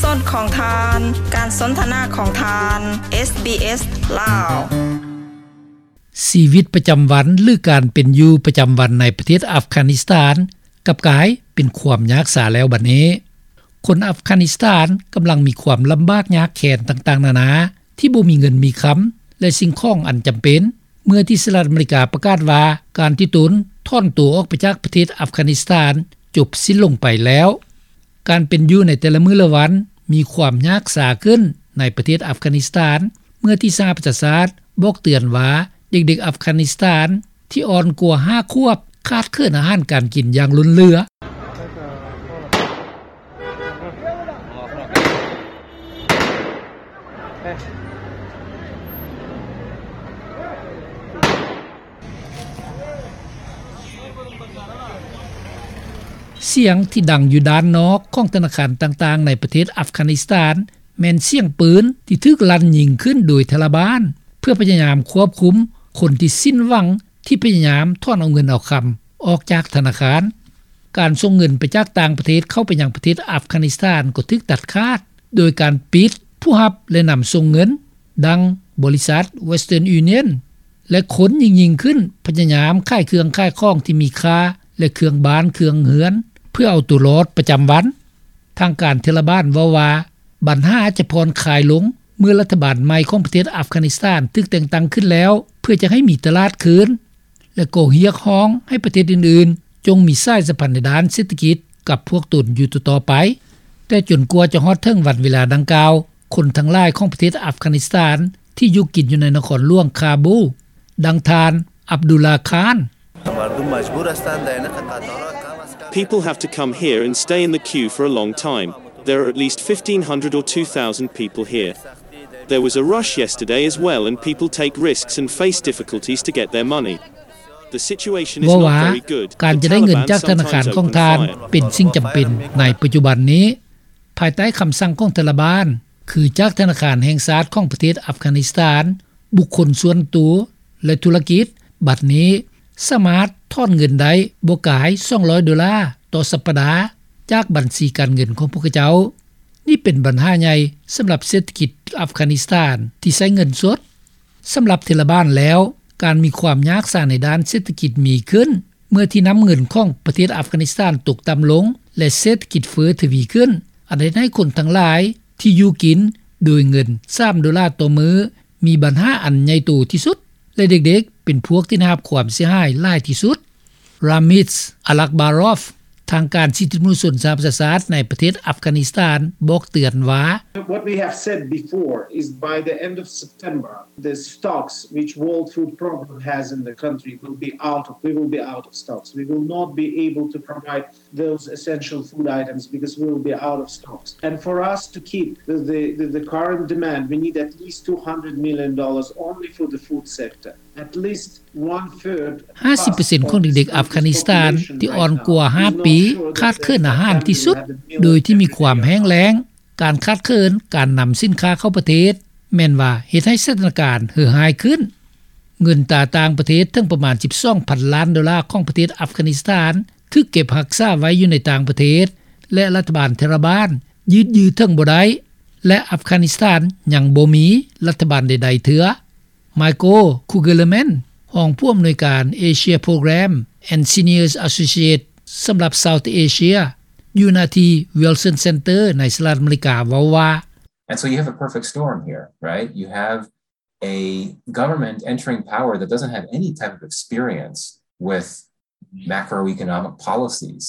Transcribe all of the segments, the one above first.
ສອດຂອງທ່ານ, ການສົນທະນາຂອງທ່ານ ເອສບີເອສ ລາວ. ຊີວິດປະຈຳວັນ ຫຼື ການເປັນຢູ່ປະຈຳວັນໃນປະເທດອັຟການິສຖານ ກັບກາຍເປັນຄວາມຍາກຊາແລ້ວບັດນີ້. ຄົນອັຟການິສຖານກຳລັງມີຄວາມລຳບາກຍາກແຄ້ນຕ່າງໆນານາ ທີ່ບໍ່ມີເງິນມີຄຳ ແລະ ສິ່ງຂອງອັນຈຳເປັນ ເມື່ອທີ່ສະຫະລັດອາເມລິກາປະກາດວ່າ ການທີ່ຕົນຖອນຕົວອອກໄປຈາກປະເທດອັຟການິສຖານຈົບສິ້ນລົງໄປແລ້ວ. ການເປັນຢູ່ໃນແຕ່ລະມື້ລະວັນມີຄວາມຍາກຊາຂຶ້ນໃນປະເທດອັຟການິສຖານ ເມື່ອທີ່ສະຫະປະຊາຊາດບອກເຕືອນວ່າ ເດັກໆອັຟການິສຖານທີ່ອ່ອນກວ່າຫ້າຂວບ ຂາດເຂີນອາຫານການກິນຢ່າງລົ້ນເຫຼືອ. ສຽງທີ່ດັງຢູ່ດ້ານນອກຂອງທະນາຄານຕ່າງໆໃນປະເທດອັຟການິສຖານ ແມ່ນສຽງປືນທີ່ຖືກລັ່ນຍິງຂຶ້ນໂດຍທາລະບານ ເພື່ອພະຍາຍາມຄວບຄຸມຄົນທີ່ສິ້ນຫວັງ ທີ່ພະຍາຍາມຖອນເອົາເງິນເອົາຄຳອອກຈາກທະນາຄານ. ການສົ່ງເງິນໄປຈາກຕ່າງປະເທດເຂົ້າໄປຍັງປະເທດອັຟການິສຖານກໍຖືກຕັດຂາດ ໂດຍການປິດຜູ້ຮັບ ແລະ ນຳສົ່ງເງິນ ດັ່ງບໍລິສັດ Western Union ແລະ ຄົນຍິ່ງໆຂຶ້ນ ພະຍາຍາມຂາຍເຄື່ອງຂາຍຂອງທີ່ມີຄ່າ ແລະ ເຄື່ອງບ້ານເຄື່ອງເຮືອນ ເພື່ອເອົາຕົວລອດປະຈຳວັນ. ທາງການເທລະບານເວົ້າວ່າ ບັນຫາຈະຜ່ອນຄາຍລົງ ເມື່ອລັດຖະບານໃໝ່ຂອງປະເທດອັຟການິສຖານຖືກແຕ່ງຕັ້ງຂຶ້ນແລ້ວ ເພື່ອຈະໃຫ້ມີຕະຫຼາດຄືນ ແລະ ກໍຮຽກຮ້ອງໃຫ້ປະເທດອື່ນໆ ຈົ່ງມີສາຍສຳພັນໃນດ້ານເສດຖະກິດກັບພວກຕົນຢູ່ຕໍ່ໆໄປ. ແຕ່ຈົນກວ່າຈະຮອດເຖິງວັນເວລາດັ່ງກ່າວ, ຄົນທັງຫຼາຍຂອງປະເທດອັຟການິສຖານທີ່ຢູ່ກິນຢູ່ໃນນະຄອນຫຼວງຄາບູ, ດັ່ງທ່ານ ອັບດຸລາຄານ. People have to come here and stay in the queue for a long time. There are at least fifteen hundred or two thousand people here. There was a rush yesterday as well, and people take risks and face difficulties to get their money. The situation is not very good. ເວົ້າວ່າ ການຈະໄດ້ເງິນຈາກທະນາຄານຂອງທ່ານເປັນສິ່ງຈຳເປັນໃນປັດຈຸບັນນີ້. ພາຍໃຕ້ຄຳສັ່ງຂອງທາລະບານ ຄືຈາກທະນາຄານແຫ່ງຊາດຂອງປະເທດອັຟການິສຖານ, ບຸກຄົນສ່ວນຕົວ ແລະ ທຸລະກິດ ບັດນີ້ສາມາດຖອນເງິນໄດ້ບໍ່ກາຍສອງຮ້ອຍໂດລາຕໍ່ສັບປະດາ ຈາກບັນຊີການເງິນຂອງພວກເຂົາເຈົ້າ. ນີ້ເປັນບັນຫາໃຫຍ່ສຳລັບເສດຖະກິດອັຟການິສຖານທີ່ໃຊ້ເງິນສົດ. ສຳລັບເທລະບານແລ້ວ, ການມີຄວາມຍາກສາໃນດ້ານເສດຖະກິດມີຂຶ້ນ ເມື່ອທີ່ນ້ຳເງິນຂອງປະເທດອັຟການິສຖານຕົກຕ່ຳລົງ ແລະ ເສດຖະກິດເຟີ້ທະວີຂຶ້ນ, ອັນເຮັດໃຫ້ຄົນທັງຫຼາຍທີ່ຢູ່ກິນໂດຍເງິນສາມໂດລາຕໍ່ມື້ ມີບັນຫາອັນໃຫຍ່ໂຕທີ່ສຸດ ແລະ ເດັກໆເປັນພວກທີ່ໄດ້ຮັບຄວາມເສຍຫາຍຫຼາຍທີ່ສຸດ. ຣາມິດ ອາລັກບາຣອຟ ທາງການສິດທິມະນຸດຊົນສະຫະປະຊາຊາດໃນປະເທດອັຟການິສຖານບອກເຕືອນວ່າ What we have said before is by the end of September, the stocks which World Food Program has in the country will be out of, we will be out of stocks. We will not be able to provide those essential food items because we will be out of stocks. And for us to keep the, the, the, the current demand, we need at least two hundred million dollars only for the food sector. At least one third. ຫ້າສິບເປີເຊັນຂອງເດັກໆອັຟການິສຖານທີ່ອ່ອນກວ່າຫ້າປີ ຂາດເຂີນອາຫານທີ່ສຸດ ໂດຍທີ່ມີຄວາມແຫ້ງແລ້ງ. ການຂາດເຂີນການນຳສິນຄ້າເຂົ້າປະເທດ ແມ່ນວ່າເຮັດໃຫ້ສະຖານະການເຫືອຮ້າຍຂຶ້ນ. ເງິນຕາຕ່າງປະເທດເຖິງປະມານສິບສອງພັນລ້ານໂດລາຂອງປະເທດອັຟການິສຖານ ຖືກເກັບຮັກສາໄວ້ຢູ່ໃນຕ່າງປະເທດ ແລະ ລັດຖະບານທາລະບານຢືດເຖິງບໍ່ໄດ້ ແລະ ອັຟການິສຖານຍັງບໍ່ມີລັດຖະບານໃດໆເທື່ອ. ໄມໂກ ຄູເກີລແມນ ຮອງຜູ້ອຳນວຍການ Asia Program and Senior Associate ສຳລັບ South Asia ຢູ່ນະທີ່ Wilson Center ໃນສະຫະລັດອາເມລິກາ ເວົ້າວ່າ And so you have a perfect storm here, right? You have a government entering power that doesn't have any type of experience with macroeconomic policies.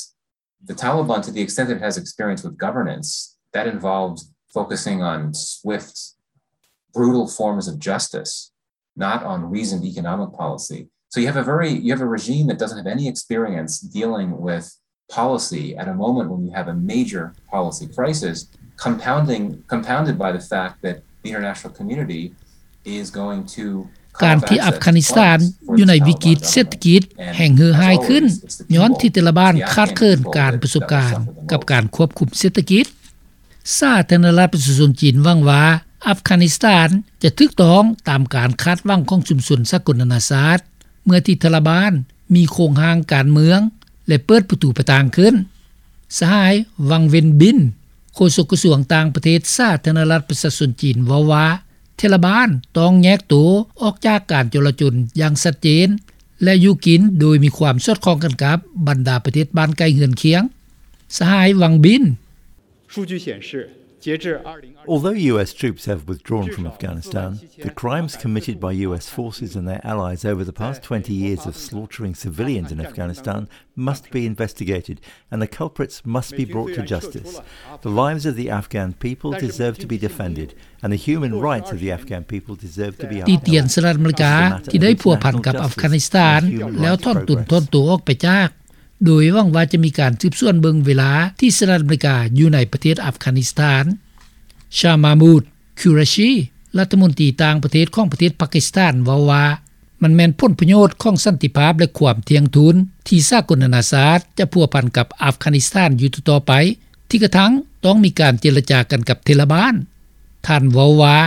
The Taliban, to the extent that it has experience with governance, that involves focusing on swift, brutal forms of justice, not on reasoned economic policy. So you have a very, you have a regime that doesn't have any experience dealing with policy at a moment when you have a major policy crisis, compounding, compounded by the fact that the international community ການທີ່ອັຟການິສຖານຢູ່ໃນວິກິດເສດຖະກິດແຫ່ງເຫືອຮ້າຍຂຶ້ນ ຍ້ອນທີ່ຕາລະບານຂາດເຂີນການປະສົບການກັບການຄວບຄຸມເສດຖະກິດ. ສາທາລະນະລັດປະຊາຊົນຈີນຫວັງວ່າ ອັຟການິສຖານຈະຖືກຕ້ອງຕາມການຄາດຫວັງຂອງຊຸມຊົນສາກົນນານາຊາດ ເມື່ອທີ່ຕາລະບານມີໂຄງຮ່າງການເມືອງ ແລະ ເປີດປະຕູປະທາງຂຶ້ນ. ສະຫາຍ ວັງ ເວັນບິນ ໂຄສົກກະຊວງຕ່າງປະເທດສາທາລະນະລັດປະຊາຊົນຈີນເວົ້າວ່າ ເທລະບານຕ້ອງແຍກໂຕອອກຈາກການຈໍລະຈົນຢ່າງຊັດເຈນ ແລະຢູ່ກິນໂດຍມີຄວາມສອດຄ່ອງກັນກັບບັນດາປະເທດບ້ານໃກ້ເຮືອນຄຽງ. ສະຫາຍ ວັງບິນ. Although U S troops have withdrawn from Afghanistan, the crimes committed by U S forces and their allies over the past twenty years of slaughtering civilians in Afghanistan must be investigated and the culprits must be brought to justice. The lives of the Afghan people deserve to be defended and the human rights of the Afghan people deserve to be upheld. ຕິຕຽນສະຫະລັດອາເມລິກາທີ່ໄດ້ພົວພັນກັບອັຟການິສຖານ ແລ້ວຖອນຕົນຖອນໂຕອອກໄປຈາກ ໂດຍຫວັງວ່າຈະມີການສືບສວນເບິ່ງເວລາທີ່ສະຫະລັດອາເມລິກາຢູ່ໃນປະເທດອັຟການິສຖານ. ຊາມາມູດ ຄູຣາຊີ ລັດຖະມົນຕີຕ່າງປະເທດຂອງປະເທດປາກິສຖານເວົ້າວ່າ ມັນແມ່ນຜົນປະໂຫຍດຂອງສັນຕິພາບ ແລະ ຄວາມທ່ຽງທູນທີ່ສາກົນນານາຊາດຈະພົວພັນກັບອັຟການິສຖານຢູ່ຕໍ່ໆໄປ ທີ່ກະທັ່ງຕ້ອງມີການເຈລະຈາກັນກັບເທລະບານ. ທ່ານເວົ້າວ່າ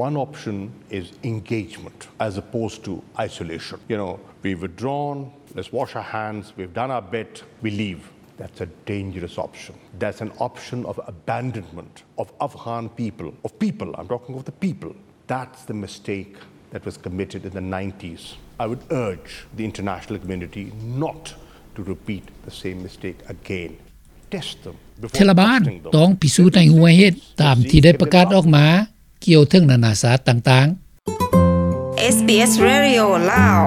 One option is engagement as opposed to isolation. You know, we've withdrawn, let's wash our hands, we've done our bit, we leave. That's a dangerous option. That's an option of abandonment of Afghan people, of people, I'm talking of the people. That's the mistake that was committed in the nineties. I would urge the international community not to repeat the same mistake again. Test them before trusting them. ເທລະບານຕ້ອງພິສູດໃຫ້ຮູ້ເຫດຕາມທີ່ໄດ້ປະກາດອອກມາກ່ຽວເຖິງນານາຊາດຕ່າງໆ. SBS Radio ລາວ.